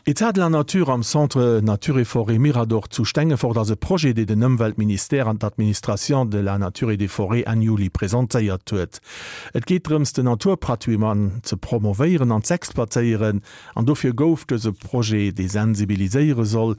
Etat de la nature am Centre Nature et Forêt Mirador zu Stengefort ass e Projet, dee den Ëmweltministère an d'Administration de la nature et des forêts Enn Juli presentéiert huet. Et geet drëms, den Naturpatrimoine ze promovéieren an z'exploitéieren an dofir gouf dëse Projet, dee sensibiliséiere soll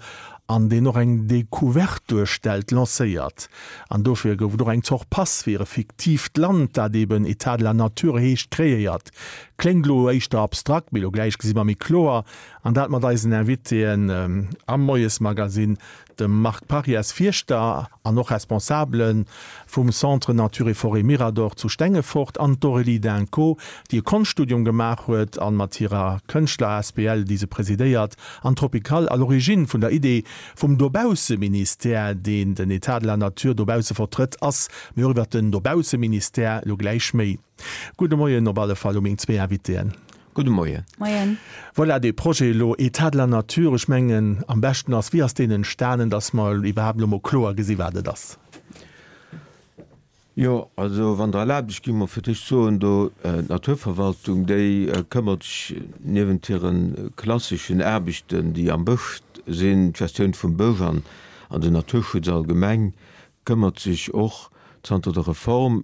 an deen och eng Decouverte duerstellt, lancéiert. An dofir gouf et och eng Zort Pass fir e fiktiivt Land, dat eben Etat de la nature heescht, kreéiert. Kléngt elo éischter abstrakt, mee elo gläich gesi mer méi kloer. An dat mat eisen Invitéen am Moiesmagazine, dem Marc Parias, Fierschter an och Responsabele vum Centre Nature et Forêt Mirador zu Stengefort, an d'Aurélie Dinco, déi e Konschtstudium gemaach huet an mat hirer Kënschtler asbl, déi se presidéiert, an Tropical, à l'origine vun der Idee vum Dobausseministère, deen den Etat de la nature dobausse vertrëtt, ass. Mee och iwwert den Dobausseministère elo gläich méi. Gudde Moien op alle Fall u meng zwee Invitéen. Gudde Moien. Moien. Voilà, dee Projet elo, État de la nature, ech mengen am beschten ass, wéi ass deen entstanen, dass mer iwwerhaapt elo mol kloer gesi wat et ass? Jo, also wann Der erlaabt, ech géing mol fir d'éischt soen, do d'Naturverwaltung, déi këmmert sech niewent hire klasseschen Aarbechten, déi am Bësch sinn, d'Gestioun vum Bësch an den Naturschutz allgemeng, këmmert sech och zanter der Reform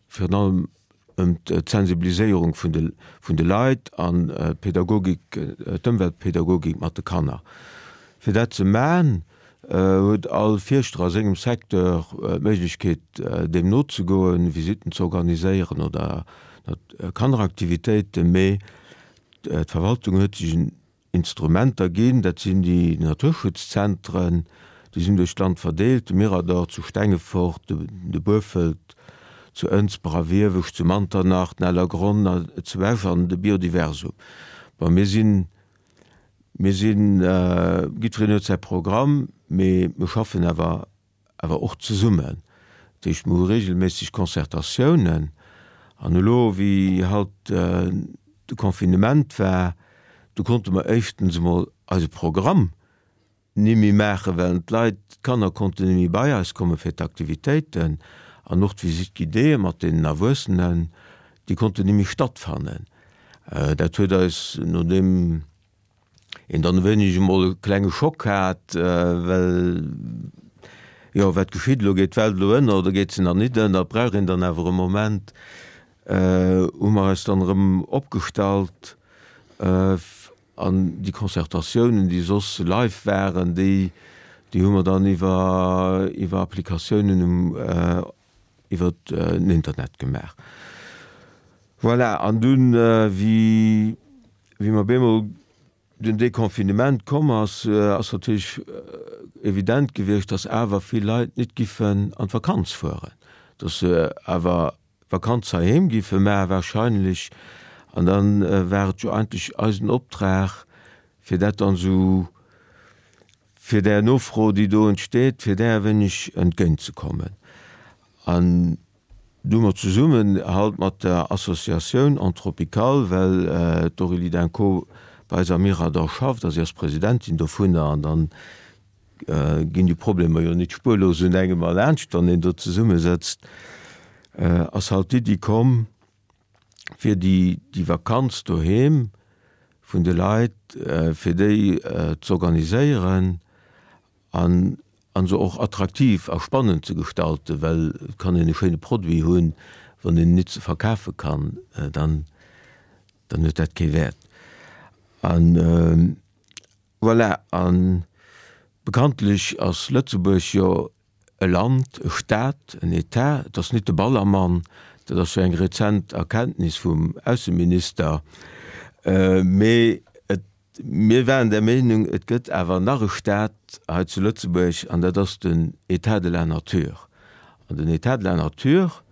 virun allem ëm d'Sensibiliséierung vun de vun de Leit an d'Pädagogik, d'Ëmweltpädagogik mat de Kanner. Fir dat ze man, huet all Fierschter a sengem Secteur d'Méiglechkeet deem nozegoen, Visitten ze organiséieren oder Kanneraktivitéiten, mee d'Verwaltung huet sech en Instrumenter ginn. Dat sinn déi Naturschutzzentren, déi sinn duerch d'Land verdeelt, de Mirador zu Stengefort, de Buerfelt zu Ënsber a Wiewesch, zu Manternach, den Ellergronn zu Esch an de Biodiversum. Bon, mir sinn, mir sinn, jiddwereen huet säi Programm, mee mir schaffen awer awer och zesummen. Dat heescht, mir hu regelméisseg Concertatiounen. An elo, wéi halt de Confinement war, du konnte mer éischtens emol eise Programm ni méi maachen, well d'Leit, d'Kanner konnten ni méi bei eis komme fir d'Aktivitéiten. An och d'Visite guidéeë mat deenen Erwuessenen, déi konnten ni méi stattfannen. Dat huet eis, nodeem een dann e wéineg emol e klenge Schock hat, well jo, wat geschitt elo, geet d'Welt elo ënner oder geet se nach nit ënner, brauch een dann awer e Moment, hu mer eis dann erëm opgestallt an déi Concertatiounen, déi soss live waren, déi, déi hu mer dann iwwer, iwwer Applikatiounen um iwwer den Internet gemaach. Voilà, an dunn, wéi, wéi mer bemol den Deconfinement komm ass, ass natierlech evident gewiescht, dass awer vill Leit nit giffen an d'Vakanz fueren, dass se awer d'Vakanz heiheem giffe maachen wahrscheinlech. An dann war et jo eigentlech eisen Optrag, fir dat dann esou, fir där Nofro, déi do entsteet, fir där e wéineg entgéintzekommen. An du hu mer zesummen halt mat der Associatioun Entropicale, well d'Aurélie Dinco bei eis am Mirador schafft a si ass Presidentin dovunner, an dann ginn déi Problemer jo nit spuerlos un engem erlaanscht, wann een do zesummesëtzt, ass halt d'Iddi komm, fir déi déi Vakanz doheem vun de Leit, fir déi z'organiséieren an an se och attraktiv a spannend ze gestalten, well et kann een e schéine Produit hunn, wann een en nit ze verkafe kann, dann dann huet dat kee Wäert. An voilà, a bekanntlech ass Lëtzebuerg jo E Land, e Staat, en Etat, et ass nit de Ballermann, dat ass jo eng rezent Erkenntnis vum Ausseminister, mee et, mir waren der Meenung, et gëtt awer nach e Staat hei zu Lëtzebuerg an dat ass den État de la nature. An den État de la nature,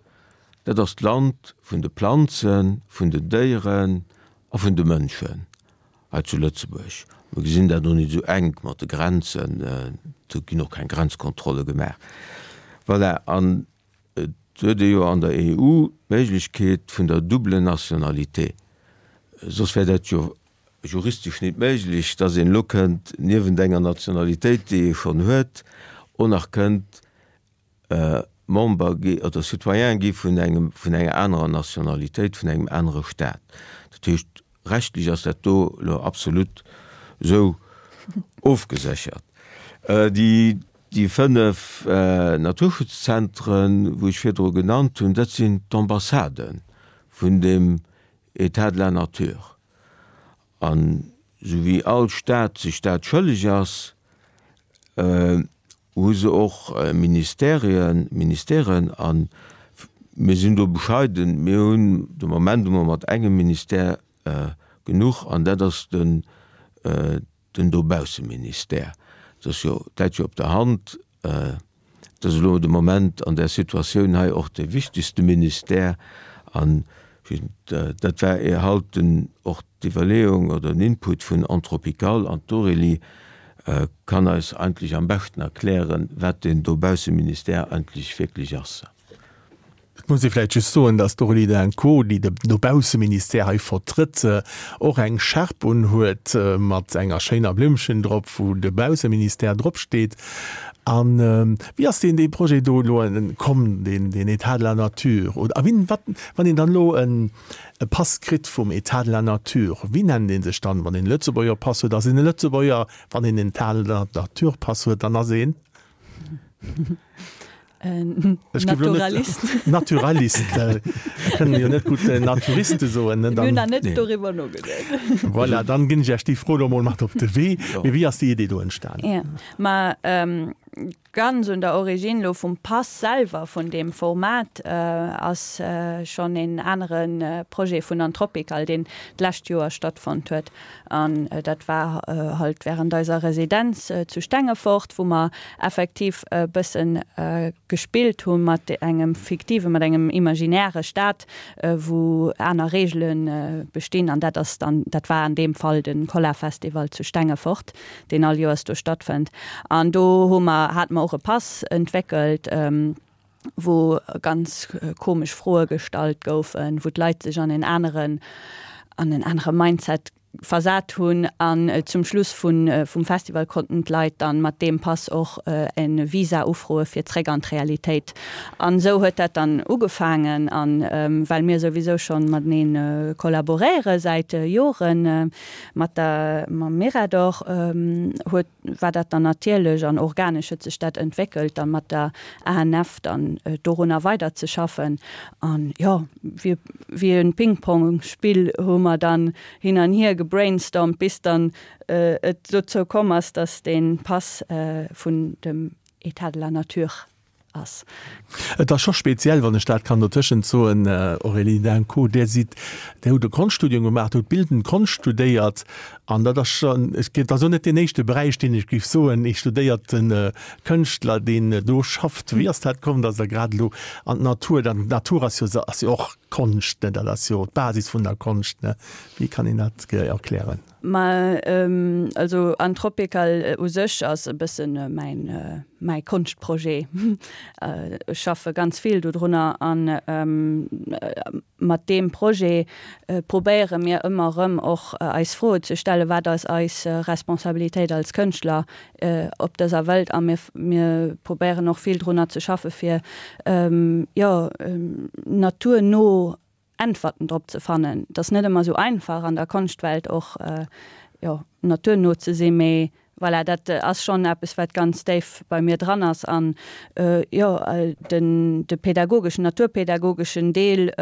dat ass d'Land vun de Planzen, vun den Déieren a vun de Mënschen. Hei zu Lëtzebuerg, mir gesinn dat och net esou enk mat de Grenzen, do ginn och keng Grenzkontrolle gemaach. Voilà, an et huet ee jo an der EU d'Méiglechkeet vun der double Nationalité. Soss wär dat jo juristesch net méiglech, dass een elo kënnt niewent enger Nationalitéit, déi ee schonn huet, och nach kënnt Member gi oder Citoyen gi vun engem, vun enger anerer Nationalitéit, vun engem anere Staat. Dat heescht, rechtlech ass dat do elo absolut. Esou ofgeséchert. Déi déi 5 Naturschutzzentren, wou ech virdru genannt hunn, dat sinn d'Ambassade vun dem État de la nature. An esou wéi all Staat sech dat schëlleg ass, hu se och Ministerien, Ministèren. A mir sinn do bescheiden, mir hunn de Moment emol mat engem Ministère genuch, an dat ass den den Dobausseministère. Dat ass jo, dat läit jo op der Hand. Dat ass elo de Moment an där Situatioun hei och dee wichtegste Ministère. An dat war halt den, och d'Iwwerleeung oder den Input vun Anthropical. An d'Aurélie kann eis eigentlech am beschten erklären, wat deen Dobausseministère eigentlech wierklech ass. Et muss ee vläicht just soen, dass d'Aurélie Drinco, déi de Dobausseministère hei vertrëtt, och eng Schärp unhuet mat enger schéiner Blimmchen drop, wou de Bausseministère dropsteet. A wéi ass deen dee Projet do elo komm, deen deen État de la nature? Oder a wien, wat, wann een dann elo e Pass kritt vum État de la nature, wéi nennt ee sech dann? Wann een e Lëtzebuerger Pass huet, ass een e Lëtzebuerger, wann een en État de la nature Pass huet, dann ass een? Naturalist. Naturalist. Kënnen jo net gutt Naturiste soen. Mir hunn nach net doriwwer nogeduecht. Voilà, dann ginn ech Iech déi Fro elo mol mat op de Wee. Mee wéi ass déi Idee do entstanen? Jo, ma ganz un der Origine elo vum Pass selwer, vun deem Format, ass schonn een anere Projet vun Anthropical, deen d'lescht Joer stattfonnt huet. An dat war halt während eiser Residenz zu Stengefort, wou mer effektiv e bëssen gespillt hu mat engem fiktiven, mat engem imaginäre Staat, wou aner Reegele bestinn. An dat ass dann, dat war an deem Fall de Kolla-Festival zu Stengefort, deen all Joers do stattfënnt. An do hu mer, hate mer och e Pass entwéckelt, wou ganz komesch Froe gestallt goufen, wou d'Leit sech an en aneren, an en anere Mindset versat hunn. An zum Schluss vun, vum Festival konnten d'Leit dann mat deem Pass och e Visa ufroe fir zréck an d'Realitéit. An esou huet dat dann ugefaangen. An well mir souwisou schonn matenee kollaboréiere säit Joren mat der, mam Mirador, huet, war dat dann natierlech an organesch huet sech dat entwéckelt, dann mat der ANF dann dorunner weiderzeschaffen. An jo, wéi wéi e Ping-Pong-Spill hu mer dann hin an hier gebrainstormt, bis dann et dozou komm ass, dass dee Pass vun dem État de la nature ass. Et ass scho speziell, wann ech dat kann dotëschent soen, Aurélie Danco, Dir sidd, Dir hutt e Konschtstudium gemaach, Dir hutt bildend Konscht studéiert an dat ass schonn, et ass elo net deen éischte Beräich, deen ech géif soen, ee studéierte Kënschtler, deen do schafft. Wéi ass dat komm, datt Der grad elo an d'Natur, d'Natur ass jo, ass jo och Konscht, ne, dat ass jo d'Basis vun der Konscht, ne, wéi kann een dat erklären? Ma also Anthropical u sech ass e bëssen mäin mäi Konschtprojet. Ech schaffe ganz vill dodrunner an mat deem Projet probéiere mir ëmmer erëm och eis Froe ze stellen, wat ass eis Responsabilitéit als Kënschtler op dëser Welt a mir mir probéieren och vill drunner ze schaffe fir jo naturno Äntwerten drop ze fannen. Et ass net ëmmer esou einfach an der Konschtwelt och jo naturno ze sinn, mee voilà, dat ass schonn eppes wat ganz déif bei mir dran ass. An jo den de pädagogeschen, naturpädagogeschen Deel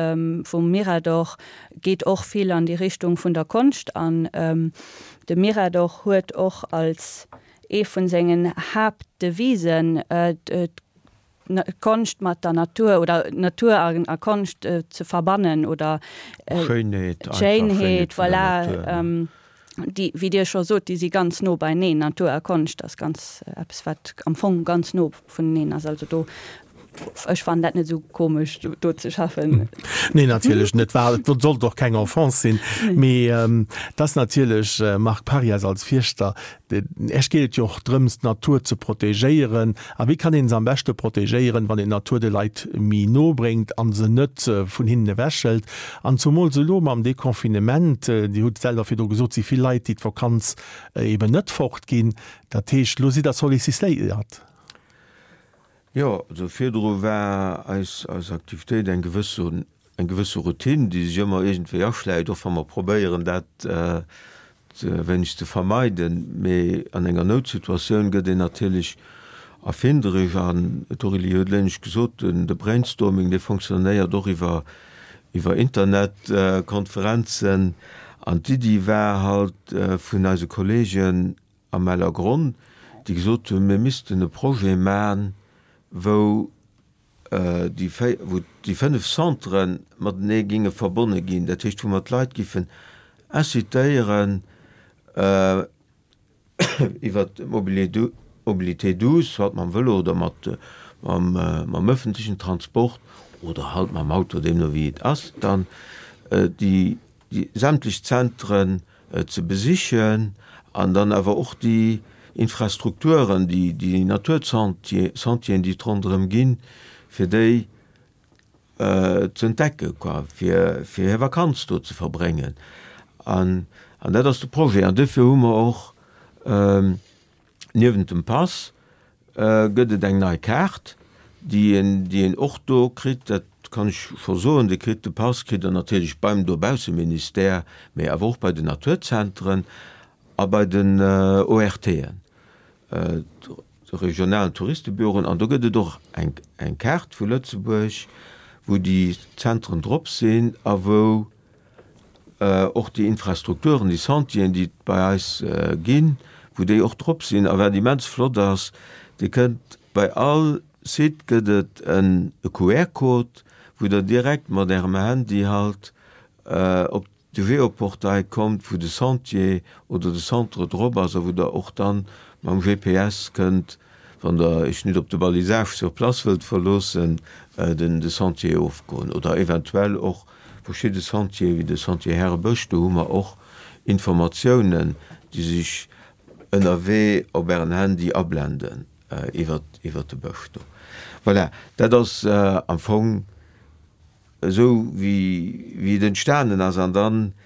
vum Mirador geet och vill an déi Richtung vun der Konscht an de Mirador huet och als ee vun sengen Haaptdevisen Konscht mat der Natur oder Natur a Konscht ze verbannen oder d'Schéinheet, voilà, déi, wéi Dir scho sot, déi si ganz no beineen. Natur a Konscht ass ganz eppes, wat am Fong ganz no vuneneen ass. Also do, ech fannen dat net esou komesch, do ze schaffen. Nee, natierlech net. War, et sollt och keng Offense sinn. Mee et ass natierlech, Marc Parias als Fierschter, Esch geet et jo och drëms, d'Natur ze protegéieren. A wéi kann een se am beschte protegéieren, wann een d'Natur de Leit méi no bréngt a se net vun hinnen ewechhëlt? An zumools elo mam Deconfinement, Dir hutt et selwer virdru gesot, si vill Leit, déi d'Vakanz eben net fortginn. Dat heescht, elo sidd Der sollicitéiert. Jo, also virdru war eis eis Aktivitéit eng gewësse eng gewësse Routine, déi sech ëmmer iergendwéi aschläicht, och wa mer probéieren dat. e wéineg ze vermeiden, mee an enger Noutsituatioun gëtt een natierlech erfinderesch an d'Aurélie huet elo gesot, de Brainstorming dee fonctionnéiert och iwwer iwwer Internetkonferenzen an d'Iddi war halt vun eise Kollegen am Ellergronn, déi gesot hunn, mir missten e Projet man, wou déi wou déi 5 Centrë matenee géinge verbonne ginn, dat heescht wou mer d'Leit giffen incitéieren iwwer d'Mobilité douce, soit mam Vëlo oder mat mam ëffentlechen Transport oder halt mam Auto, deemno wéi et ass, dann déi sämtlech Zentren ze besichen an dann awer och déi Infrastrukturen, déi Natursentieren, déi et ronderëm ginn, fir déi ze entdecken, quoi, fir hir Vakanz do ze verbréngen. An dat ass de Projet. An duerfir hu mer och Niewent dem Pass gëtt et eng nei Kaart, déi een, déi een och do kritt. Dat kann ech scho soen. Dir kritt de Pass, kritt Der natierlech beim Dobausseministère, mee awer och bei den Naturzentren a bei den ORTen, de regionalen Touristebüroen. An do gëtt et och eng, eng Kaart vu Lëtzebuerg, wou déi Zentren drop sinn a wou och déi Infrastrukturen, déi Sentieren, déi et bei eis ginn, wou déi och drop sinn. A wat immens flott ass, Dir kënnt bei all Site gëtt et en QR-Code, wou Der direkt mat Ärem Handy halt op de Geoportail kommt, wou de Sentier oder de Centre drop ass a wou Der och dann mam GPS kënnt Wann der iech nit op de Balisage sur place wëllt verloossen, den de Sentier ofgoen oder eventuell och verschidde Sentier wéi de Sentier Härebësch, do hu mer och Informatiounen, déi sech ënnerwee op ären Handy ablenden iwwert iwwert de Bësch do. Voilà, dat ass am Fong esou wéi wéi et entstanen ass an dann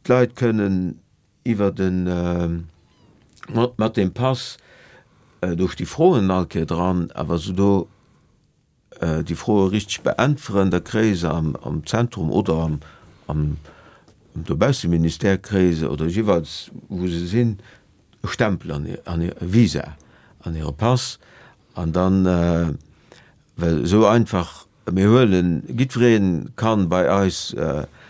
d'Leit kënnen Iwwer den, mat deem Pass, do sti Froen all Kéier dran, a wa se do déi Froe richteg beäntweren, da kréie se am Zentrum oder am, am Dobausseministère kréie se, oder jeeweils wou se sinn, e Stempel an hir, an hir, e Visa an hire Pass. An dann, well esou einfach Mir huelen, jiddweree kann bei eis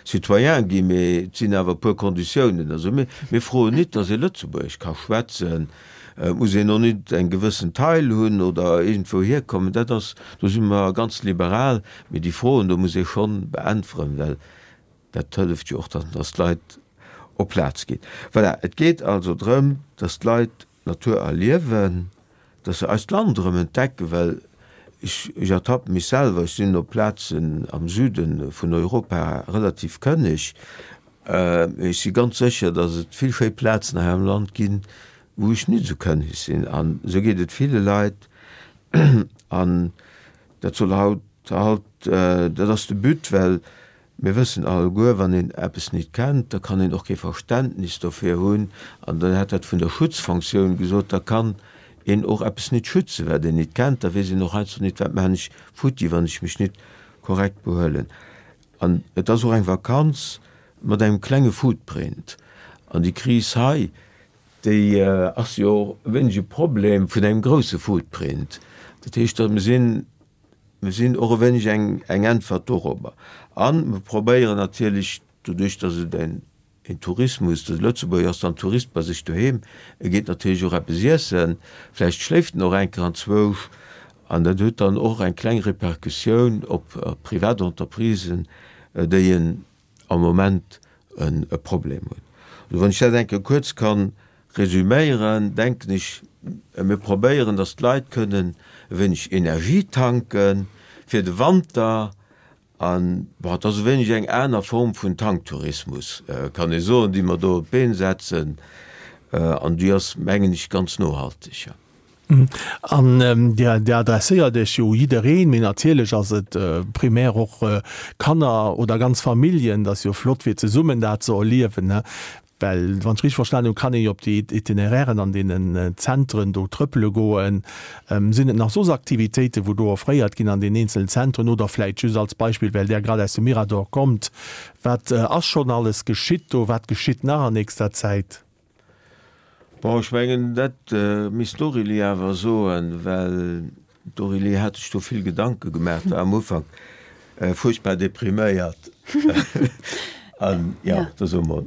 Citoyen ginn, mee et sinn awer e puer Konditiounen. Also mir, mir froen nit, datt ee Lëtzebuergesch ka schwätzen, et muss een och nit eng gewëssen Taille hunn oder iergendwou hierkommen, dat ass, do si mer ganz liberal, mee déi Froen do muss ee schonn beäntweren, well dat hëlleft jo och dann, datt d'Leit op Plaz ginn. Voilà, et geet also drëm, datt d'Leit d'Natur erliewen, dass se eist Land erëm entdecken, well ech, ech ertappe mech selwer, ech sinn op Plazen am Süde vun Europa relativ kënneg, mee ech si ganz sécher, dass et vill schéi Plazen hei am Land ginn, wou ech nit esou kënneg sinn. An esou geet et ville Leit. An dat soll haut halt, dat ass de But, well Mir wëssen alleguer, wann een eppes nit kennt, da kann een och kee Verständnis dofir hunn. An dann hat dat vun der Schutzfonktioun gesot, da kann een och eppes nit schützen, wat een nit kennt. Da weess een och heiansdo nit, wat maachen ech futti, wann ech mech nit korrekt behuelen. An et ass och eng Vakanz mat engem klenge Footprint. An déi Kris hei, déi ass jo och e wéineg e Problem vun engem grousse Footprint. Dat heescht, mir sinn Mir sinn och e wéineg eng Äntwert dorobber. A mir probéieren natierlech, doduerch datt et en Tourismus, de Lëtzebuerger ass dann Tourist bei sech doheem, e geet natierlech och eppes iessen, vläicht schléift en och eng Kéier anzwousch, an dat huet dann och eng kleng Repercussioun op privat Entreprisen, déi en am Moment e Problem hunn. Also wann ech dat eng Kéier kuerz ka resüméieren, denken ech, mir probéieren, datt d'Leit kënnen e wéineg Energie tanke fir de Wanter. An, bon, et ass e wéineg eng aner Form vun Tanktourismus, kann ee soen, déi mer do op d'Been setzen. An déi ass, mengen ech, ganz nohalteg. An Dir adresséiert Iech jo u jiddereen, mee natierlech ass et primär och Kanner oder ganz Familljen. Et ass jo flott fir zesummen dat ze erliewen. Well, wann ech richteg verstanen hunn, kann ee jo op déi Itinerairen an deenen Zentren do trëppele goen. Sinn et nach soss Aktivitéiten, wou do offréiert ginn an den eenzelen Zentren? Oder vläicht just als Beispill, well Der grad aus dem Mirador kommt, Wat ass schonn alles geschitt do? Wat geschitt nach an nächster Zäit? Bon, ech mengen, dat misst d'Aurélie awer soen, well D'Aurélie hat sech do vill Gedanke gemaach, war am Ufank fuerchtbar depriméiert. An jo, da so mol.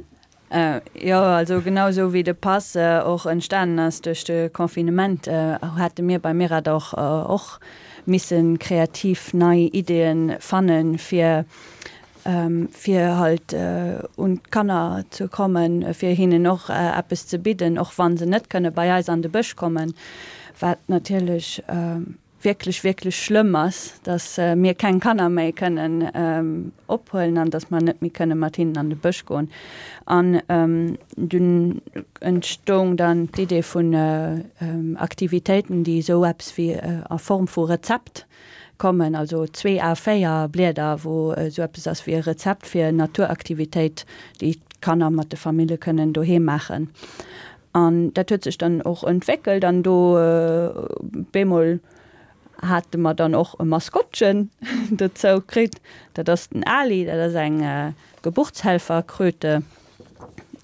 Jo, also genau esou wéi de Pass och entstanen ass duerch de Confinement, hate mir bei Mirador och misse kreativ nei Ideeë fannen, fir fir halt un d'Kanner ze kommen, fir hinnen och eppes ze bidden, och wa se net kënne bei eis an de Bësch kommen, wat natierlech wierklech, wierklech schlëmm ass, datt mir keng Kanner méi kënnen ophuelen an datt mer net méi kënne mat hinnen an de Bësch goen. An dunn entstoung dann d'Idee vun Aktivitéiten, déi esou eppes wéi a Form vu Rezept kommen, also zwee A4 Blieder, wou esou eppes ass wéi e Rezept fir Naturaktivitéit, déi d'Kanner mat de Famille kënnen doheem maachen. An dat huet sech dann och entwéckelt an do bemol hate mer dann och e Maskottchen dozou kritt. Dat ass den Ali, dat ass eng Geburtshelferkröte.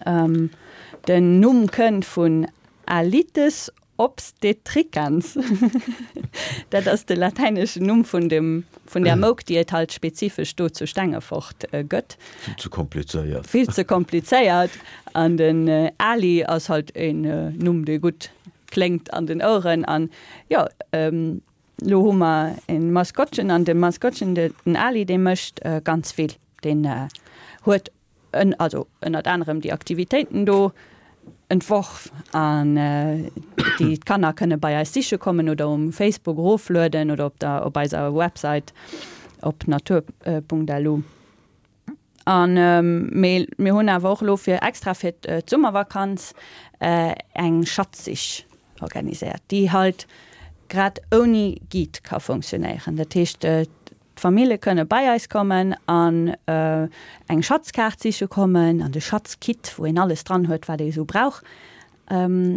Den Numm kënnt vun Alytes Obstetricans, dat ass de latäineschen Numm vun dem, vun där Mouk, déi et halt spezifesch do zu Stengefort gëtt. Vill ze komplizéiert. Vill ze komplizéiert. An den Ali ass halt een Numm, dee gutt kléngt an den Oueren. An jo, elo hu mer e Maskottchen an de Maskottchen, den Ali, dee mécht ganz vill. Deen huet en, also ënnert anerem déi Aktivitéiten do entworf an déi d'Kanner kënne bei eis siche kommen oder um Facebook eroflueden oder op der op eiser Website op natur.lu. An mee mir hunn awer och elo fir extra fir d'Summervakanz eng Schatzsich organiséiert, déi halt grad ouni Guide ka funktionéieren. Dat heescht, D'Famille kënne bei eis kommen an eng Schatzkaart siche kommen an de Schatzkit, wou een alles dran huet, wat ee sou brauch,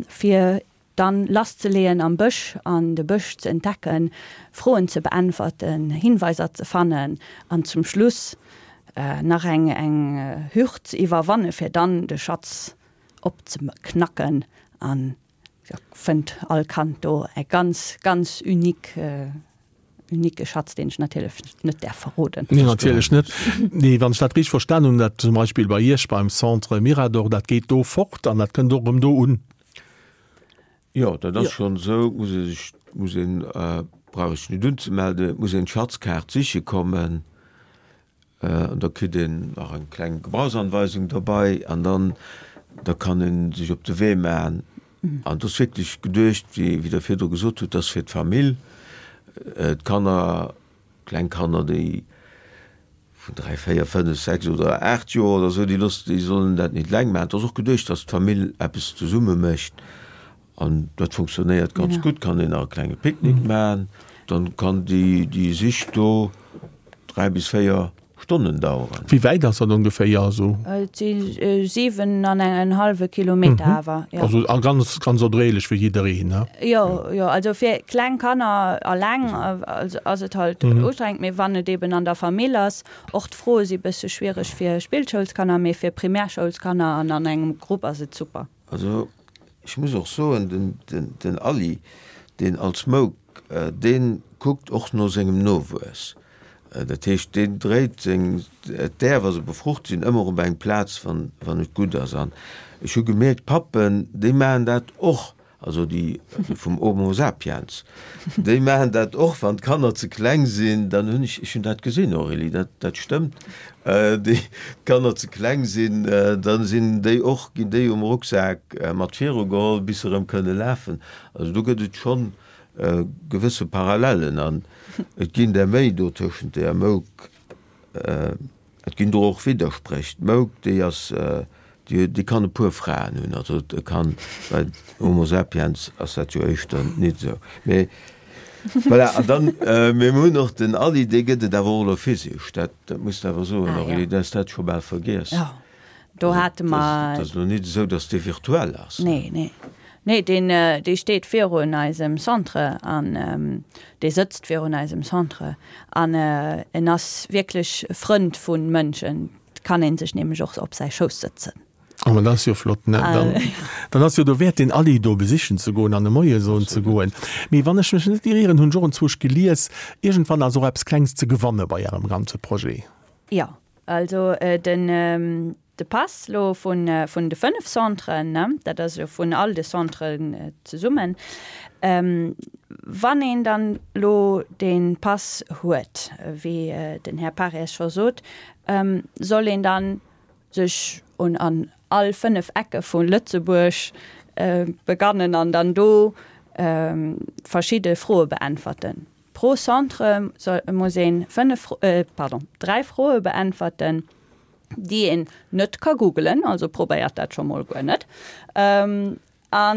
fir dann lasszeleeën am Bësch an de Bësch ze entdecken, Froen ze beäntwerten, Hinweiser ze fannen an zum Schluss nach eng eng Hürd ze iwwerwanne fir dann de Schatz opzeknacken an da fënnt all Kand do e ganz, ganz unique Unique Schatz, deen ech natierlech net däerf verroden. Nee, natierlech net. Nee, wann ech dat richteg verstan hunn, dat zum Beispill bei Iech beim Centre Mirador, dat geet do fort an dat kënnt och erëm do un. Jo, dat ass schonn esou. Muss ee sech, muss een, brauch ee sech net unzemelden, et muss een d'Schatzkaart siche kommen. An da kritt een nach eng kleng Gebrauchsanweisung derbei an dann da kann ee sech op de Wee maachen. An et ass wierklech geduecht, wéi Der virdru gesot hutt, dass fir d'Famill, d'Kanner, kleng Kanner, déi vun 3, 4, 5, 6 oder 8 Joer oder esou, déi loosse, déi sollen dat net eleng maachen. Et ass och geduecht, dass d'Famill eppes zesumme mécht. An dat funktionéiert ganz gutt, kann een nach e klenge Picknick maachen, dann kann déi Sich do 3 bis 4 Stonnen daueren. Wéi wäit ass dat ongeféier esou? Et si 7 an en hallwe Kilometer awer, jo. Also a ganz, ganz erdréiglech fir jiddereen, ne? Jo, jo, also fir kleng Kanner alleng ass et halt ustrengend, mee wann et eben an der Famill ass, och d'Froe si bësse schwiereg fir Spillschoulskanner, mee fir Primärschoulskanner an an engem Grupp ass et super. Also ech muss och soen, den Aly, deen als Mouk, dee kuckt och no sengem Nowuess. Dat heescht, deen dréit seng, d'Äer, wa se befrucht sinn, ëmmer op eng Plaz, wann et gutt ass. An ech hu gemierkt, d'Pappen, déi maachen dat och. Also déi vum Homo sapiens, déi maachen dat och, wann d'Kanner ze kleng sinn, dann hunn ech, ech hunn dat gesinn, Aurélie, dat, dat stëmmt, déi d'Kanner ze kleng sinn, da sinn déi och, ginn déi um Rucksak mat viru geholl, bis se erëm kënne lafen. Also do gëtt et schonn gewësse Parallellen an et ginn der méi do tëschent der Mouk. Et ginn do och Widderspréch. D'Mouk, déi ass, déi, déi kann e puer Fraen hunn. Also et kann, bei Homo sapiens ass dat jo éischter nit esou. Mee voilà, an dann, mee mir hunn och den Ally, dee gëtt et awer och elo physesch. Dat, dat muss de awer soen, Aurélie, du has dat scho bal vergiess. Jo. Do hate mer. Dat ass elo net esou, datt dee virtuell ass. Nee, nee. Nee, deen, dee steet virun eisem Centre an dee sëtzt virun eisem Centre an en ass wierklech Frënd vu Mënschen. Et kann ee sech nämlech och op säi Schouss sëtzen. Oh, ma dat ass jo flott, ne? Dann, dann ass jo dowäert, deen Ally do besichen ze goen an e Moie soen ze goen. Mee wann ech mech net irieren, hunn ech och enzwousch gelies, iergendwann ass och eppes Klengs ze gewanne bei Ärem ganze Projet. Jo, also den, de Pass lo vun, vun de 5 Centren, ne, dat ass jo vun all de Centren zesummen, wann een dann lo dee Pass huet, wéi den Här Parries scho sot, soll een dann sech un an all 5 Ecke vu Lëtzebuerg begannen an dann do verschidde Froe beäntwerten. Pro Centre soll, muss een 5, pardon, 3 Froe beäntwerten, déi een net ka googelen, also probéiert dat scho mol guer net. A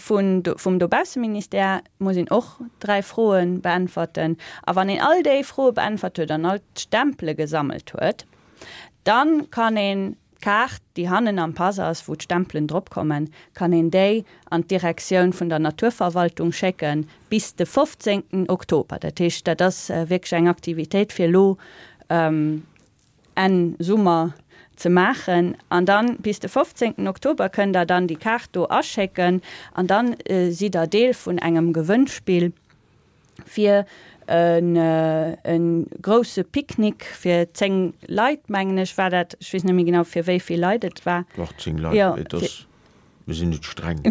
vun, vum Dobausseministère muss een och 3 Froe beäntwerten. A wann een all déi Froe beäntwert huet an all d'Stempele gesammelt huet, dann kann een D'Kaart, déi hannen am Pass ass, wou d'Stempelen drop kommen, kann een déi an d'Direktioun vun der Naturverwaltung schécke bis de 15 Oktober. Dat heescht, dat ass wierklech eng Aktivitéit fir elo Enn Summer ze maachen. An dann bis de 15 Oktober kënnt der dann déi Kaart do aschécken an dann sidd der Deel vun engem Gewënnspill. fir e grousse Picknick fir 10 Leit, mengen ech, war dat. Ech weess net méi genau, fir wéi vill Leit et war. Dach, 10 Leit, mee et ass, mir sinn net streng.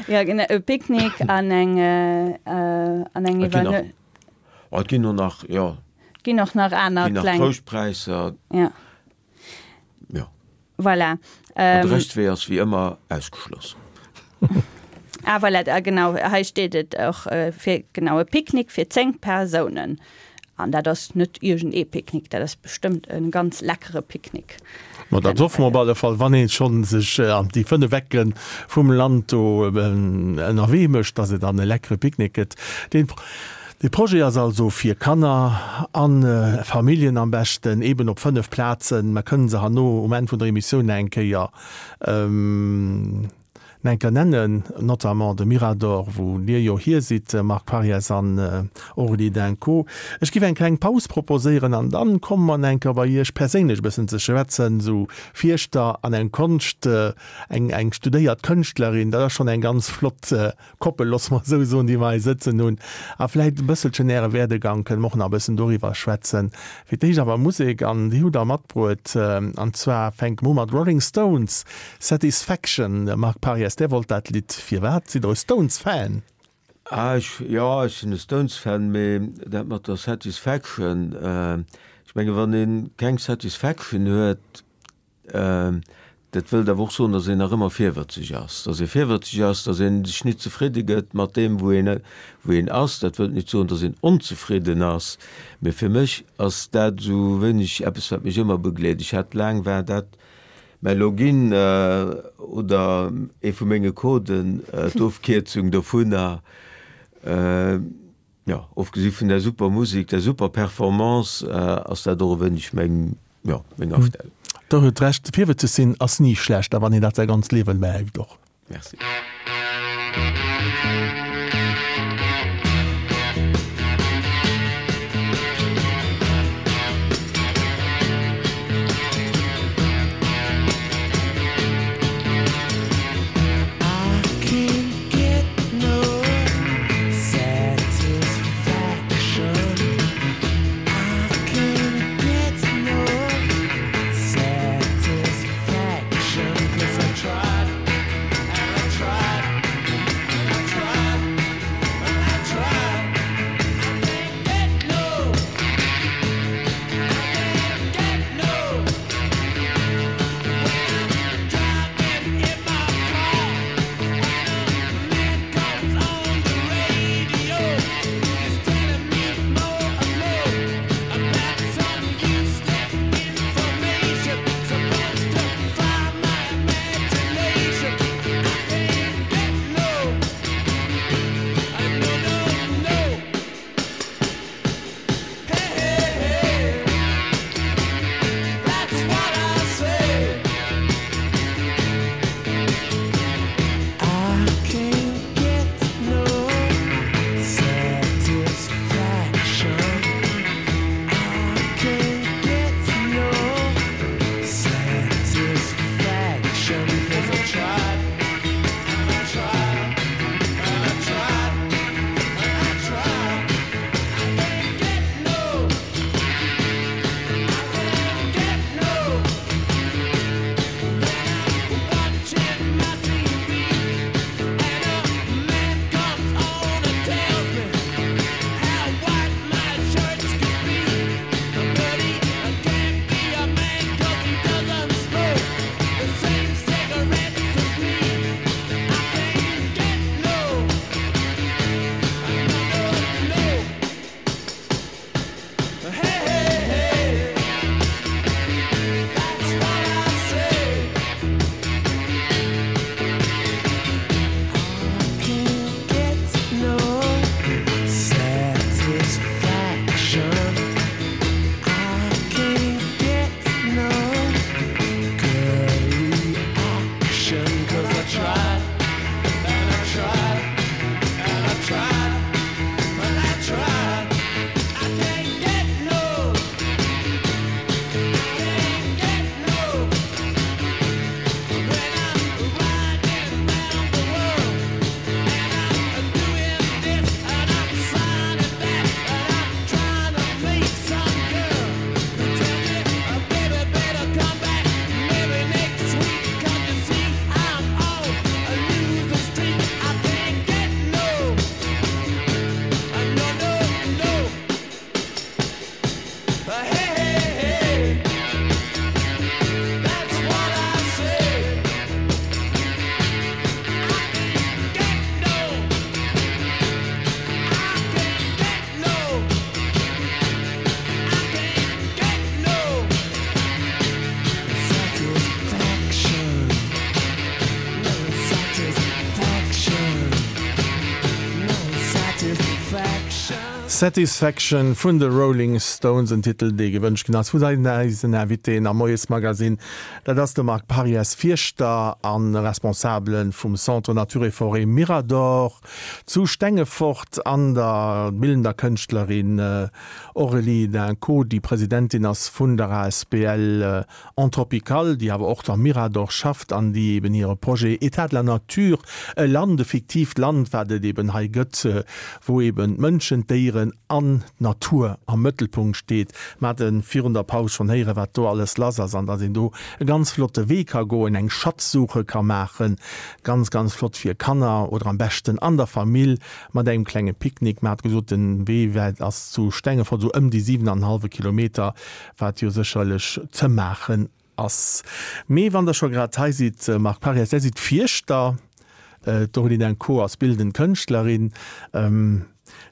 Jo, genau, e Picknick an eng, an eng Iwwernuechtung. Et ginn och nach, jo. Et ginn och nach aner kleng. Et ginn nach Trouschtpräisser. Jo. Jo. Voilà. An de Reschtwee ass wéi ëmmer ausgeschloss. Ah voilà, ah genau, hei steet et och, fir, genau, e Picknick fir 10 Persounen. An dat ass net iergend ee Picknick, dat ass bestëmmt e ganz leckere Picknick. Ma dat hoffe mer op alle Fall, wann ee schonn sech an déi 5 Ecke vum Land do ënnerwee mécht, dass et dann e leckere Picknick gëtt. Deen. De Projet ass also fir Kanner an Familljen am beschten, eben op 5 Plazen. Mer kënnen se herno um Enn vun der Emissioun nach eng Kéier nach eng Kéier nennen, notamment de Mirador, wou Dir jo hier sidd, Marc Parries an Aurélie Dinco. Ech giff eng kleng Paus proposéieren an dann komme mer nach eng Kéier bei Iech perséinlech e bëssen ze schwätzen, esou Fierschter an eng Konscht, eng eng studéiert Kënschtlerin, dat ass schonn eng ganz flott Koppel, loosse mer esou soen, déi mer hei sëtzen hunn. A vläicht e bësselchen Äre Werdegang, kënne mer och nach e bëssen doriwwer schwätzen. Fir d'éischt awer Musek, an déi hutt Der matbruet. An zwar fänke mer u mat Rolling Stones, Satisfaction. Marc Parries, Där wollt dat Lidd. Firwat? Sidd Der e Stones-Fan? Ah, ech, jo, ech sinn e Stones-Fan, mee dat mat der Satisfaction, ech menge wann ee keng Satisfaction huet, Dat wëllt awer och soen, datt een nach ëmmer virwëtzeg ass. Datt ee virwëtzeg ass, datt ee sech nit zefridde gëtt mat deem, wou een, wou een ass. Dat wëllt nit soen, datt een onzefridden ass, mee fir mech ass dat esou wéineg eppes, wat mech ëmmer begleet. Ech hat laang, war dat mäi Login oder ee vu menge Coden, d'Ofkierzung dovunner. Jo, ofgesi vun der super Musik, der super Performance, ass dat och e wéineg meng, jo, meng Astellung. Der huet Recht, virwëtzeg sinn ass ni schlecht, a wann een dat säi ganzt Liewen behält och. Merci. Satisfaction vun de Rolling Stones, en Titel dee gewënscht ginn ass vun eisen Invitéen am Moiesmagazine. Dat ass de Marc Pariès, Fierschter a Responsabele vum Centre Nature et Forêt Mirador zu Stengefort an der bildender Kënschtlerin Aurélie Dinco, déi Presidentin ass vun der asbl Anthropical, déi awer och am Mirador schafft an déi eben hire Projet État de la nature, e Land, e fiktiivt Land, wat et eben hei gëtt, wou eben d'Mënschen, d'Déieren an d'Natur am Mëttelpunkt steet. Mer hate virun der Paus schonn héieren, wat do alles lass ass an datt een do e ganz flotte Wee ka goen, eng Schatzsuche ka maachen, ganz, ganz flott fir Kanner oder am beschten an der Famill mat engem klenge Picknick. Mer hate gesot, den Wee ass zu Stengefort esou ëm déi 7 an en hallwe Kilometer. Wat jo sécherlech ze maachen ass. Mee wann Der scho grad hei sidd, Marc Parias, Der sidd Fierschter, d'Aurélie Dinco ass bildend Kënschtlerin.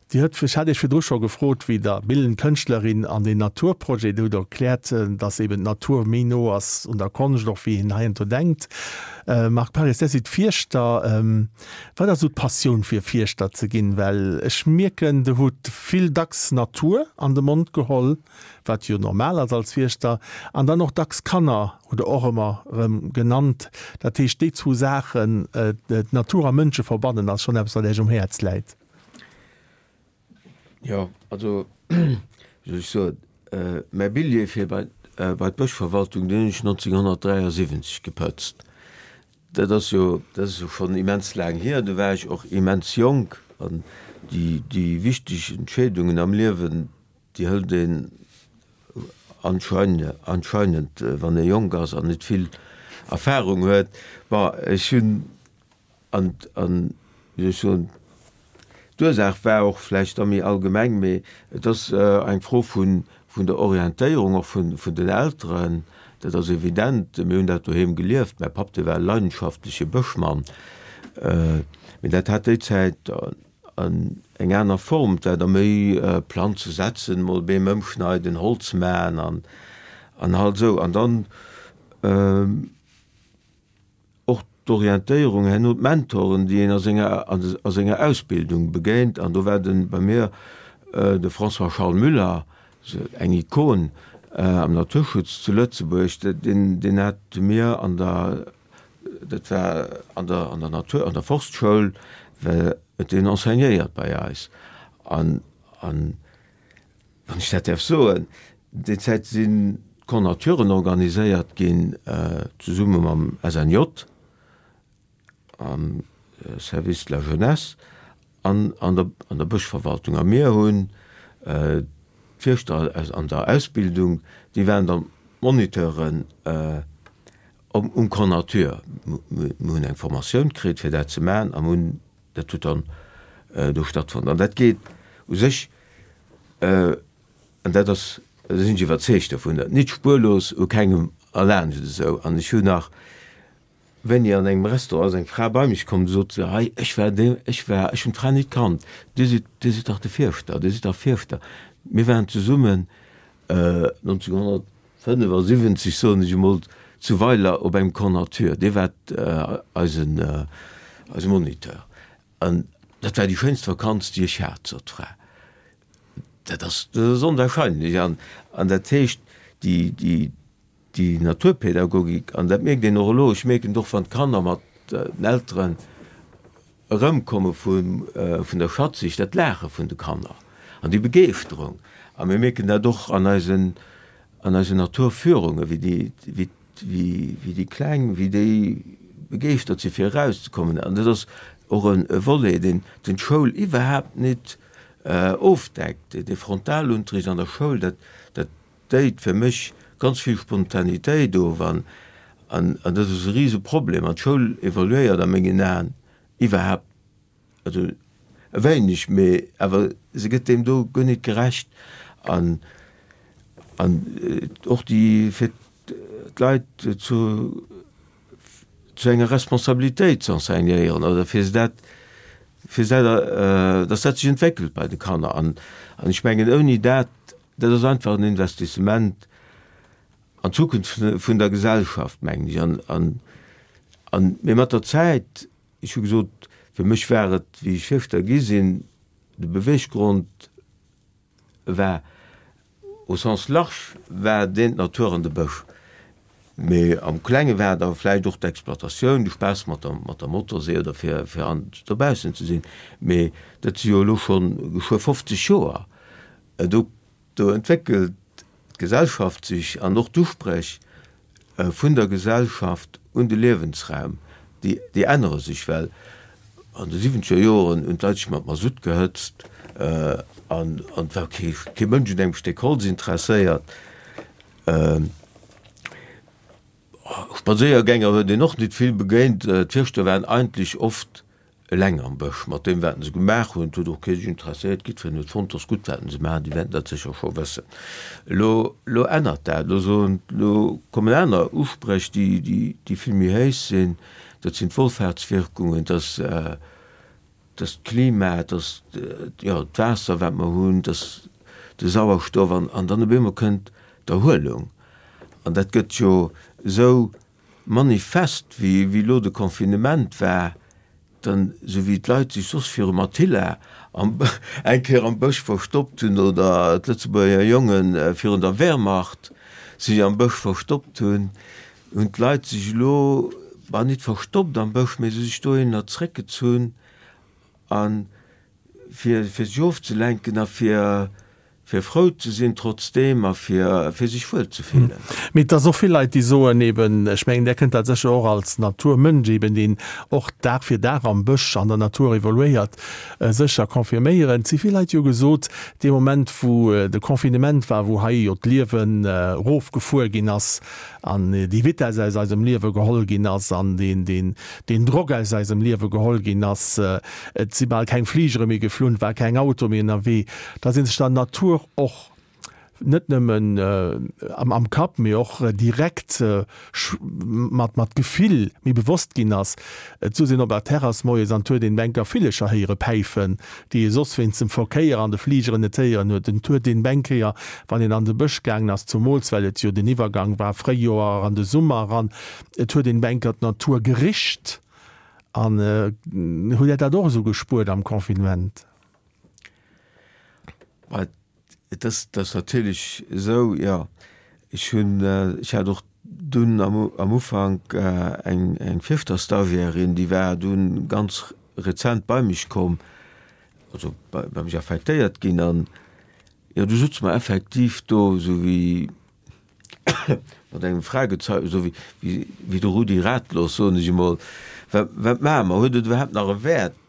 Dir hutt, ech hat Iech virdru scho gefrot, wéi der bildend Kënschtlerin an deen Naturprojet, Dir hutt erkläert, datt eben d'Natur méi no ass un der Konscht och wéi een heiansdo denkt. Marc Parias, Der sidd Fierschter. Wat ass esou d'Passioun fir Fierschter ze ginn? Well ech mierken, Der hutt vill dacks Natur an de Mond geholl. wat jo normal ass als Fierschter, an dann och dacks Kanner hutt Der och ëmmer erëm genannt. Dat heescht, déi zwou Saachen, d'Natur a Mënsche verbannen, ass schonn eppes, wat Iech um Häerz läit. Jo, also, wéi soll ech soen, mäi Billjee fir bei d'Bëschverwaltung, deen hunn ech 1973 gepëtzt. Dat ass jo, dat ass jo schonn immens laang hier. Do war ech och immens jonk an déi, déi wichteg Entscheedungen am Liewen, Déi hëlt een anscheinend, wann ee jonk ass an net vill Erfahrung huet. Bon, ech hunn, an, an, wéi soll ech soen, d'Ursaach war och vläicht da méi allgemeng, mee et ass eng Fro vun, vun der Orientéierung och vun, vun den Elteren. Dat ass evident. Mir hunn dat doheem gelieft. Mäi Papp, dee war e leidenschaftleche Bëschmann, mee dat hat déi Zäit, An eng aner Form, dat da méi Planze setzen, mol Beem ëmschneiden, Holz maachen an an halt esou. An dann och d'Orientéierung herno, d'Mentoren, déi een a senger a senger Ausbildung begéint. An do war de bei mir de François-Charles Müller, eng Ikon am Naturschutz zu Lëtzebuerg, deen deen hat mir an der Dat war an der, an der Natur, an der Forstschoul, well et deen enseignéiert bei eis. An, an wann ech dat däerf soen, déi Zäit sinn d'Camps-naturen organiséiert ginn, zesumme mam SNJ, am Service de la Jeunesse an an der, an der Bëschverwaltung. A mir hunn d'Fierschter an der Ausbildung, déi waren dann d'Moniteuren, Um Camp Nature. Mir hunn eng Formatioun kritt, fir dat ze maachen, a mir hunn, dat huet dann do stattfonnt. An dat geet u sech, an dat ass, do sinn ech iwwerzeegt dovun, nit spuerlos u kengem erlaanscht esou. An ech hunn nach, wéini an engem Restaurant ass eng Fra bei mech komm, sot se, hei, ech war dee, ech war, ech hunn d'Fra nit kannt, Dir sidd, Dir sidd dach de Fierschter, Dir sidd dach Fierschter. Mir waren zesummen 1900. 75, soen ech emol, zu Weiler op engem Camp Nature, dee war eisen, eise Moniteur. An dat war déi schéinst Vakanz, déi ech hat, sot d'Fra. Dat ass, dat ass onwahrscheinlech. An, an dat heescht, déi, déi, déi Naturpädagogik, an dat mierkt een och elo, ech mierken et och, wann d'Kanner mat den Elteren Erëmkomme vun der Schatzsich, dat Laache vun de Kanner an déi Begeeschterung. A mir mierken dat och an eisen, an eisen Naturführungen, wéi déi, wéi, wéi déi Kleng, wéi déi begeeschtert si fir erauszekommen. An dat ass och e Volet, deen, deen d'Schoul iwwerhaapt net ofdeckt. Dee Frontalunterricht an der Schoul, dat, dat déit fir mech ganz vill Spontanitéit of an an dat ass e rise Problem an d'Schoul evoluéiert a mengen Aen iwwerhaapt, also e wéineg, mee awer se gëtt deem do guer nit gerecht an an och déi fir d'Leit zu zu enger Responsabilitéit ze enseignéieren oder fir se dat fir se dat datt dat sech entwéckelt bei de Kanner an an ech mengen ouni dat Dat ass einfach en Investissement an d'Zukunft vun der Gesellschaft, mengen ech. An, an, mee mat der Zäit, ech hu gesot, fir mech war et, wéi ech Fierschter gi sinn, de Beweggrond. War au sens large war deen d'Natur an de Bësch. Mee am Klenge war da vläicht och d'Exploitatioun, de Spaass mat der mat der Motorsee oder fir fir an dobaussen ze sinn. Mee dat si jo elo schonn geschwë 50 Joer. Do do entwéckelt d'Gesellschaft sech an och d'Uspréch vun der Gesellschaft un de Liewensraum, déi déi ännere sech, well an de siwwenzeger Joren hunn d'Leit sech mat Masutt gehëtzt an an et war kee kee Mënsch un engem Stéck Holz interesséiert. Spadséiergänger huet een och nit vill begéint. D'Fierschter waren eigentlech oft eleng am Bësch mat deem wat se gemaach hunn. Et huet och kee sech interesséiert, jiddwereen huet fonnt, 't ass gutt wat se maachen, déi wäerten dat sécher scho wëssen. Elo, elo ännert dat, elo soen, elo kommen aner Uspréch, déi, déi, déi vill méi héich sinn, dat sinn d'Wohlfahrtswirkungen, dat ass, dat ass d'Klima, dat ass, jo, d'Waasser wat mer hunn, dat ass de Sauerstoff an, an dann op eemol kënnt d'Erhuelung an dat gëtt jo esou manifest wéi wéi elo de Confinement war, dann esou wéi d'Leit sech soss virum Attila am eng Kéier am Bësch verstoppt hunn oder d'Lëtzebuerger Jongen virun der Wehrmacht sech am Bësch verstoppt hunn, hunn d'Leit sech elo, bah nit verstoppt am Bësch, mee se sech dohinner zréckgezunn a fir fir sech ofzelenken a fir fir frou ze sinn trotzdeem a fir fir sech wuel ze fillen. Mee et ass och vill Leit, déi soen eben, ech mengen, där kënnt dat sécher och als Naturmënsch eben, deen och Dag fir Dag am Bësch, an der Natur evoluéiert, sécher confirméieren. Et si vill Leit, déi hu gesot, dee Moment wou de Confinement war, wou hei jo d'Liewen erofgefuer ginn ass an déi Vitess aus eisem Liewe geholl ginn ass an deen, deen, deen Drock aus eisem Liewe geholl ginn ass, et si bal keng Fligere méi geflunn, et war keng Auto méi ënnerwee, da si sech der Natur och net nëmmen am Kapp, mee och direkt mat mat Gefill méi bewosst ginn ass. Et souz een op der Terrass moies an 't huet een Bänker Villecher héiere päifen, déi ee soss wéinst dem Verkéier an de Fligeren net héieren huet. Et huet een Bänkéier, wann een an de Bësch gaangen ass, zumools well et jo den Iwwergang war Fréijoer an de Summer eran, et huet een Bänker d'Natur gericht. An hutt Där dat och esou gespuert am Confinement? Et ass, et ass natierlech esou, jo. Ech hunn, ech hat och dunn am am Ufank eng eng Fierfter-Stagiairin, déi war dunn ganz rezent bei mech komm, also bei bei mech affektéiert ginn an jo, du sutze mer effektiv do esou wéi mat engem Fragezeichen, esou wéi wéi wéi de Rudi ratlos, soen ech emol, wat wat maache mer? Huet et iwwerhaapt nach e Wäert?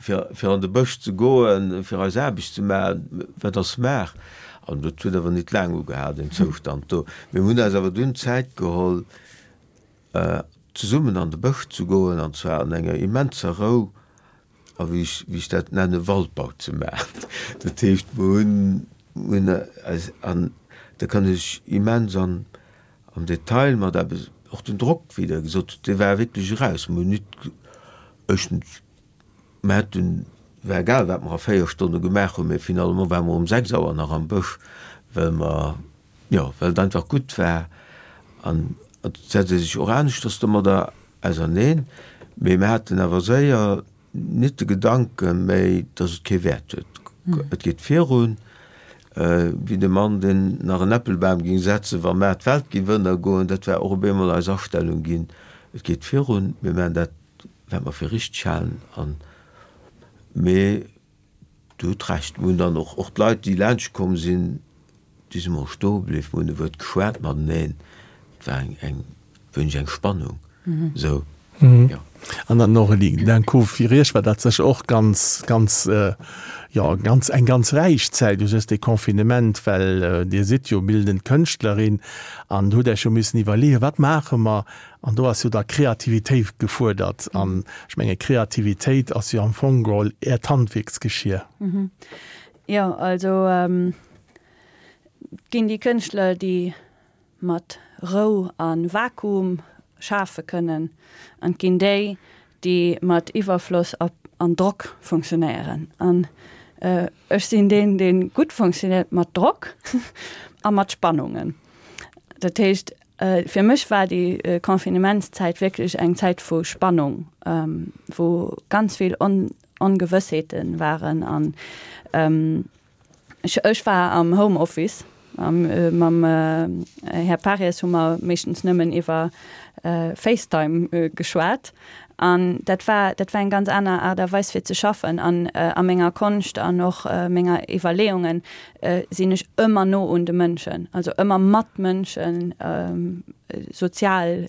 fir, fir an de Bësch ze goen, fir eis Aarbecht ze maachen, wat ass maach? An dat huet awer nit laang ugehal, deen Zoustand do. Mir hunn eis awer dunn Zäit geholl, zesummen an de Bësch ze goen, an zwar an enger immenser Rou a wéi ech, wéi ech dat nennen, Waldbau ze maachen. Dat heescht, mir hunn, hunn eis, an da kann ech immens an, am Detail mat eppes, och den Drock, wéi Der gesot hutt, dee war wierklech eraus. Mir hunn nit, éischtens, Mer hätten, war egal wat mer a 4 Stonne gemaach hunn, mee finalement ware mer um 6 Auer nach am Bësch, well mer, jo, well et einfach gutt war. An et setzt ee sech och aneschters domadder auserneen. Mee mer haten awer séier nit de Gedanke méi, dass et kee Wäert huet. Et geet virun, wéi de Mann, deen nach en Äppelbam géing setzen, wa mar d'Welt géif ënnergoen. Dat war och op eemol eis Astellung ginn, Et geet virun, mir maachen dat wat mer fir richteg halen an, mee Dir hutt Recht, mir hunn dann och, och d'Leit déi laanscht komm sinn, déi si mol stoe bliww, mir hunn e Wuert geschwat mateneen, et war eng, eng wéineg eng Spannung esou, jo. An dann Aurélie, d'un coup, fir Iech war dat sécher och ganz, ganz, jo, ganz, eng ganz räich Zäit u sech, dee Confinement, well Dir sidd jo bildend Kënschtlerin an hutt Iech jo missen iwwerleeën, wat maache mer An do ass jo da Kreativitéit gefuerdert. An ech menge Kreativitéit ass jo am Fong geholl Äert Handwierksgeschier. Jo, also et ginn déi Kënschtler, déi mat Rou a Vakuum schafe kënnen, an et ginn déi, déi mat Iwwerfloss an Drock funktionéieren. An ech sinn deen, dee gutt funktionéiert mat Drock a mat Spannungen. Dat heescht, Fir mech war déi Confinementszäit wierklech eng Zäit vu Spannung, wou ganz vill Ongewëssheete waren an. Ech war am Homeoffice a mam Här Paries hu mer meeschtens nëmmen iwwer Facetime geschwat. An dat war, dat war eng ganz aner Aart a Weis fir ze schaffen. An a menger Konscht an och menger Iwwerleeungen sinn ech ëmmer no un de Mënschen, also ëmmer mat Mënschen, sozial.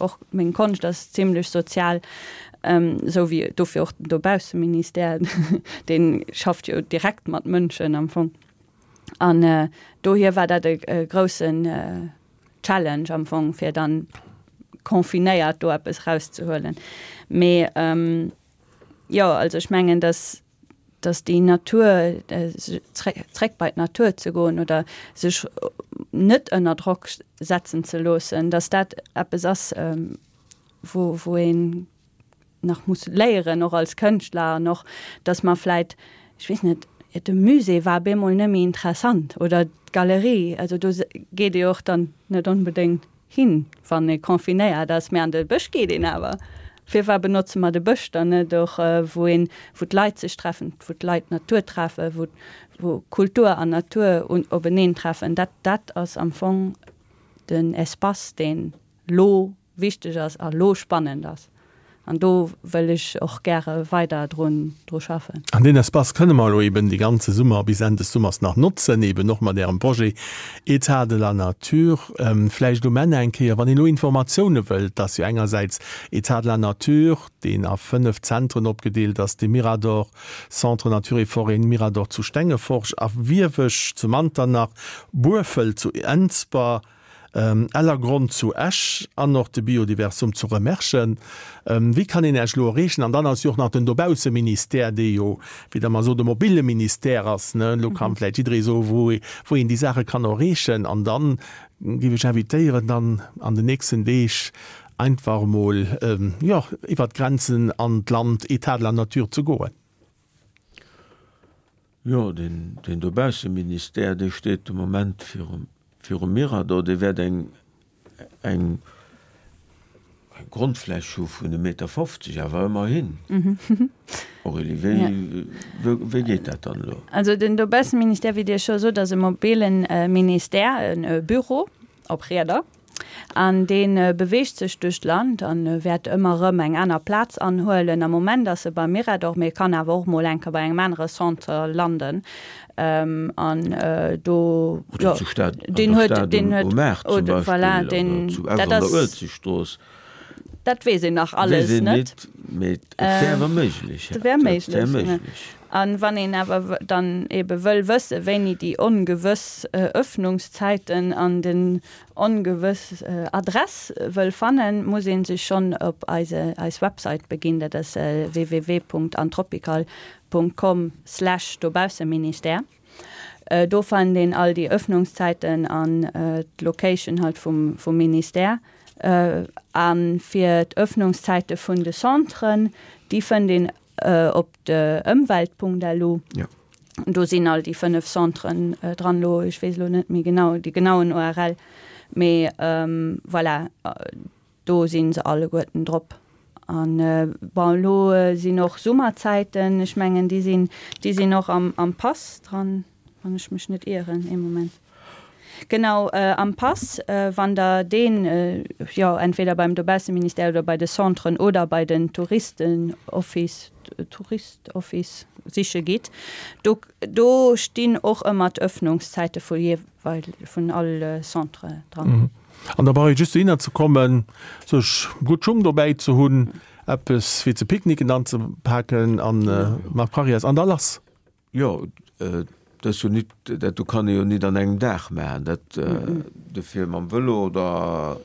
Och meng Konscht ass zimlech sozial. Esou wéi dofir och den Dobausseministère, dee schafft jo direkt mat Mënschen am Fong. An dohier war dat e groussen Challenge am Fong, fir dann confinéiert do eppes erauszehuelen. Mee jo, also ech mengen, datt datt déi Natur, zréck bei d'Natur ze goen oder sech net ënner Drock setzen ze loossen, datt dat eppes ass, wou wou een nach muss léieren, och als Kënschtler an och, datt mer vläit, ech weess net, de Musée war bemol net méi interessant oder d'Galerie, also do geet ee jo och dann net onbedéngt hin, wann ee confinéiert ass, mä an de Bësch geet een awer. Firwat benotze mer de Bësch dann net och, wou een, wou d'Leit sech treffen, wou d'Leit d'Natur treffen, wou wou Kultur an Natur openeen treffen? Dat dat ass am Fong den Espace, deen lo wichteg ass a lo spannend ass. An do wëll ech och gäre weider drun dru schaffen. An deen Espace kënne mer elo eben de ganze Summer bis Enn des Summers nach notzen, eben och mat Ärem Projet Etat de la nature. Vläicht um Enn eng Kéier, wann een elo Informatioune wëllt, et ass jo engersäits Etat de la nature, deen a 5 Zentren opgedeelt ass, de Mirador, Centre Nature et Forêt Mirador zu Stengefort a Wiewesch zu Manternach, Burfelt zu Ensber, Ellergronn zu Esch an och de Biodiversum zu Remerschen. Wéi kann een Iech elo erreechen? An dann ass jo och nach den Dobausseministère, dee jo, wéi Der mer sot, e mobile Ministère ass, ne? Elo kann vläicht jidderee soen, wou wou een déi Saache kann erreechen. An dann géif ech invitéieren, dann an den nächsten Deeg einfach emol, jo, iwwert d'Grenzen an d'Land Etat de la nature ze goen. Jo, deen Dobausseministère, dee steet de Moment virum Mirador. Dee wäert eng Grondfläch hu vun e Meter 50, awer ëmmerhin. Aurélie, wéi geet dat dann elo? Also den Dobausseministère, wéi Dir scho sot, ass e mobile Ministère, e Büro op Rieder. An dee beweegt sech duerch d'Land a wäert ëmmer erëm eng aner Plaz anhuelen. Am Moment ass e beim Mirador, mee e kann awer och mol eng Kéier bei engem anere Centre landen. An do, jo, deen huet, deen huet, oder voilà, deen, dat ass, dat weess een nach alles net. Mee et wär awer méiglech. Et wär méiglech. An wann een awer dann ebe wëll wësse wéini déi ongewëss Öffnungszäiten an den ongewëss Adress wëll fannen, muss een sech schonn op eise eis Website beginn, dat ass www.antropical.com slash dobausseministère. Do fannt een all déi Öffnungszäiten an d'Location halt vum vum Ministère. A fir d'Öffnungszäite vun de Centren, déi fënnt een Op de Ëmwelt.lu. Do sinn all déi 5 Centren dran. Elo, ech weess elo net méi genau déi genauen URL, mee voilà, do si se alleguerten drop. An bon, elo sinn och Summerzäiten, ech mengen déi sinn, déi sinn och am Pass dran. Wann ech mech net ieren, ee Moment. Genau, am Pass, wann Der deen, jo, entweder beim Dobausseministère oder bei de Centren oder bei den Touristenoffice, Touristoffice siche gitt, do, do stinn och ëmmer d'Öffnungszäite vu jeeweil, vun all Centre dran. An da brauch ee just dohinner ze kommen, sech gutt Schung dobäi ze hunn, eppes fir ze picknicken anzepaken a mat Parrias an da lass. Jo, dat ass jo nit, dat do kann ee jo nit an engem Dag maachen. Dat, dofir mam Vëlo oder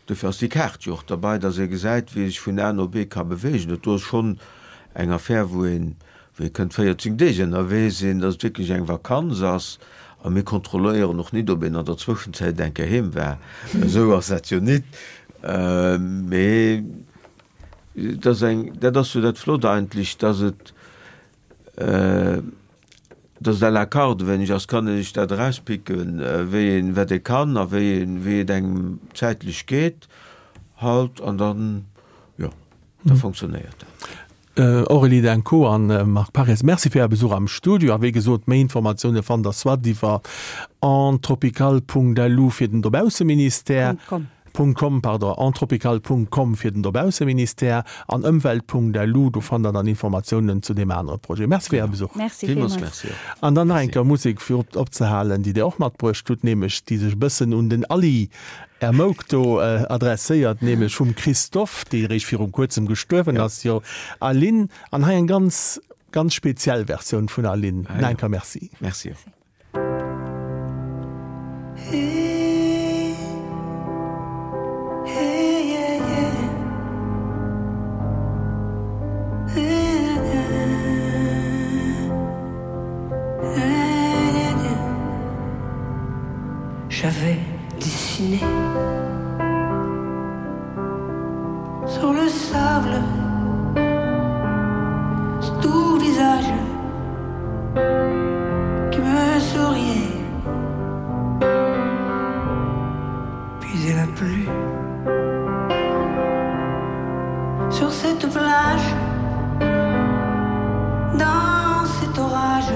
dofir ass déi Kaart jo och derbei, datt ee gesäit, wéi ee sech vun A no B ka beweegen. Dat do ass schonn eng Affär, wou een, wou ee kënnt 14 Deeg ënnerwee sinn, datt et wierklech eng Vakanz ass. A mir kontrolléieren och nit, ob een an der Zwëschenzäit eng Kéier heem war. Esou ass dat jo nit. Mee et ass eng, dat ass jo dat Flott eigentlech, datt et, Dass et à la carte e wéineg ass, kann ee sech dat erauspicken, wéi een, wat ee kann a wéi een, wéi et engem zäitlech geet halt an dann, jo, da fonctionnéiert dat. Aurélie Denco an Marc Parries, Merci fir Är Besuch am Studio. A wéi gesot, méi Informatioune fannt der soit iwwer entropical.lu fir den Dobausseministère, .com. .com, pardon, entropical.com fir den Dobausseministère an ëmwelt.lu, do fannt der dann Informatiounen zu deem anere Projet. Merci fir Är Besuch. Merci villmools. Merci och. An dann nach eng Kéier Musek fir opzehalen, déi Dir och matbruecht hutt, nämlech déi sech e bëssen un den Aly Är Mouk do adresséiert, nämlech vum Christophe, dee réischt virum kuerzem gestuerwen ass, jo Aline, an hei eng ganz, ganz speziell Versioun vun Aline. Nach eng Kéier Merci. Merci och. J'avais dessiné sur le sable tout visage qui me souriait puis elle a plu sur cette plage dans cet orage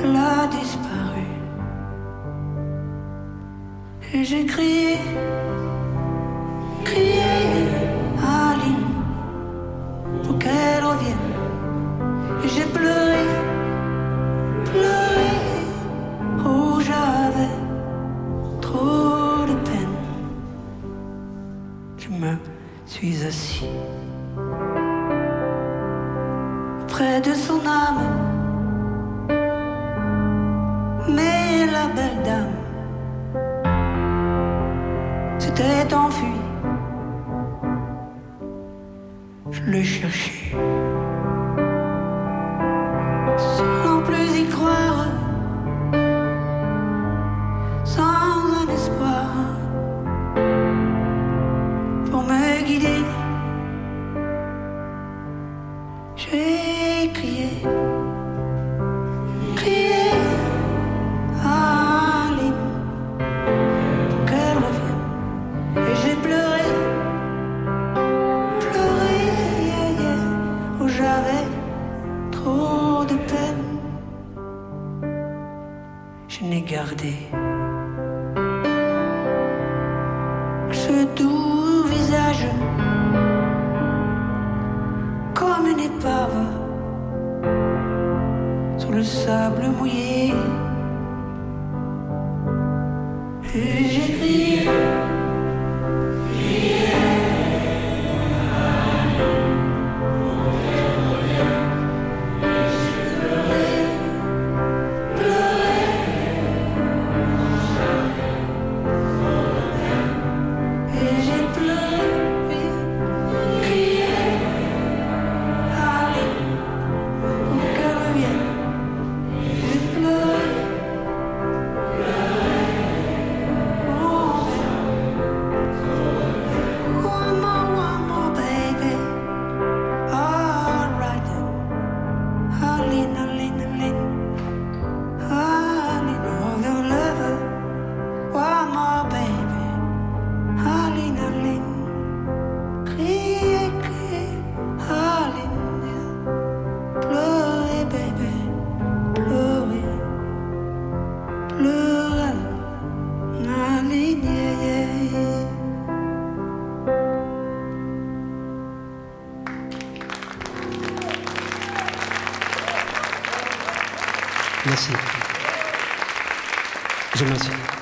Elle a disparu Et j'ai crié crié Aline pour qu'elle revienne Et j'ai pleuré pleuré oh j'avais trop de peine Je me suis assis près de son âme mais la belle dame s'était enfuie je le cherchais sans plus y croire sans un espoir pour me guider j'ai crié crié Aline pour qu'elle revienne et j'ai pleuré pleuré yeah, yeah, où j'avais trop de peine je n'ai gardé que ce doux visage comme une épave sur le sable mouillé et j'ai crié Et j'ai pleuré, crié, allez, pour qu'elle revienne. J'ai pleuré, pleuré, oh baby. One more, one more, baby. All right then. Aline, Aline, Aline. Aline, oh, the lover. One more, baby. Aline, Aline. Criez, criez, Aline. Pleurez, baby. Pleurez. Pleurez, Aline, yeah, yeah, yeah. Merci. Je m'assure.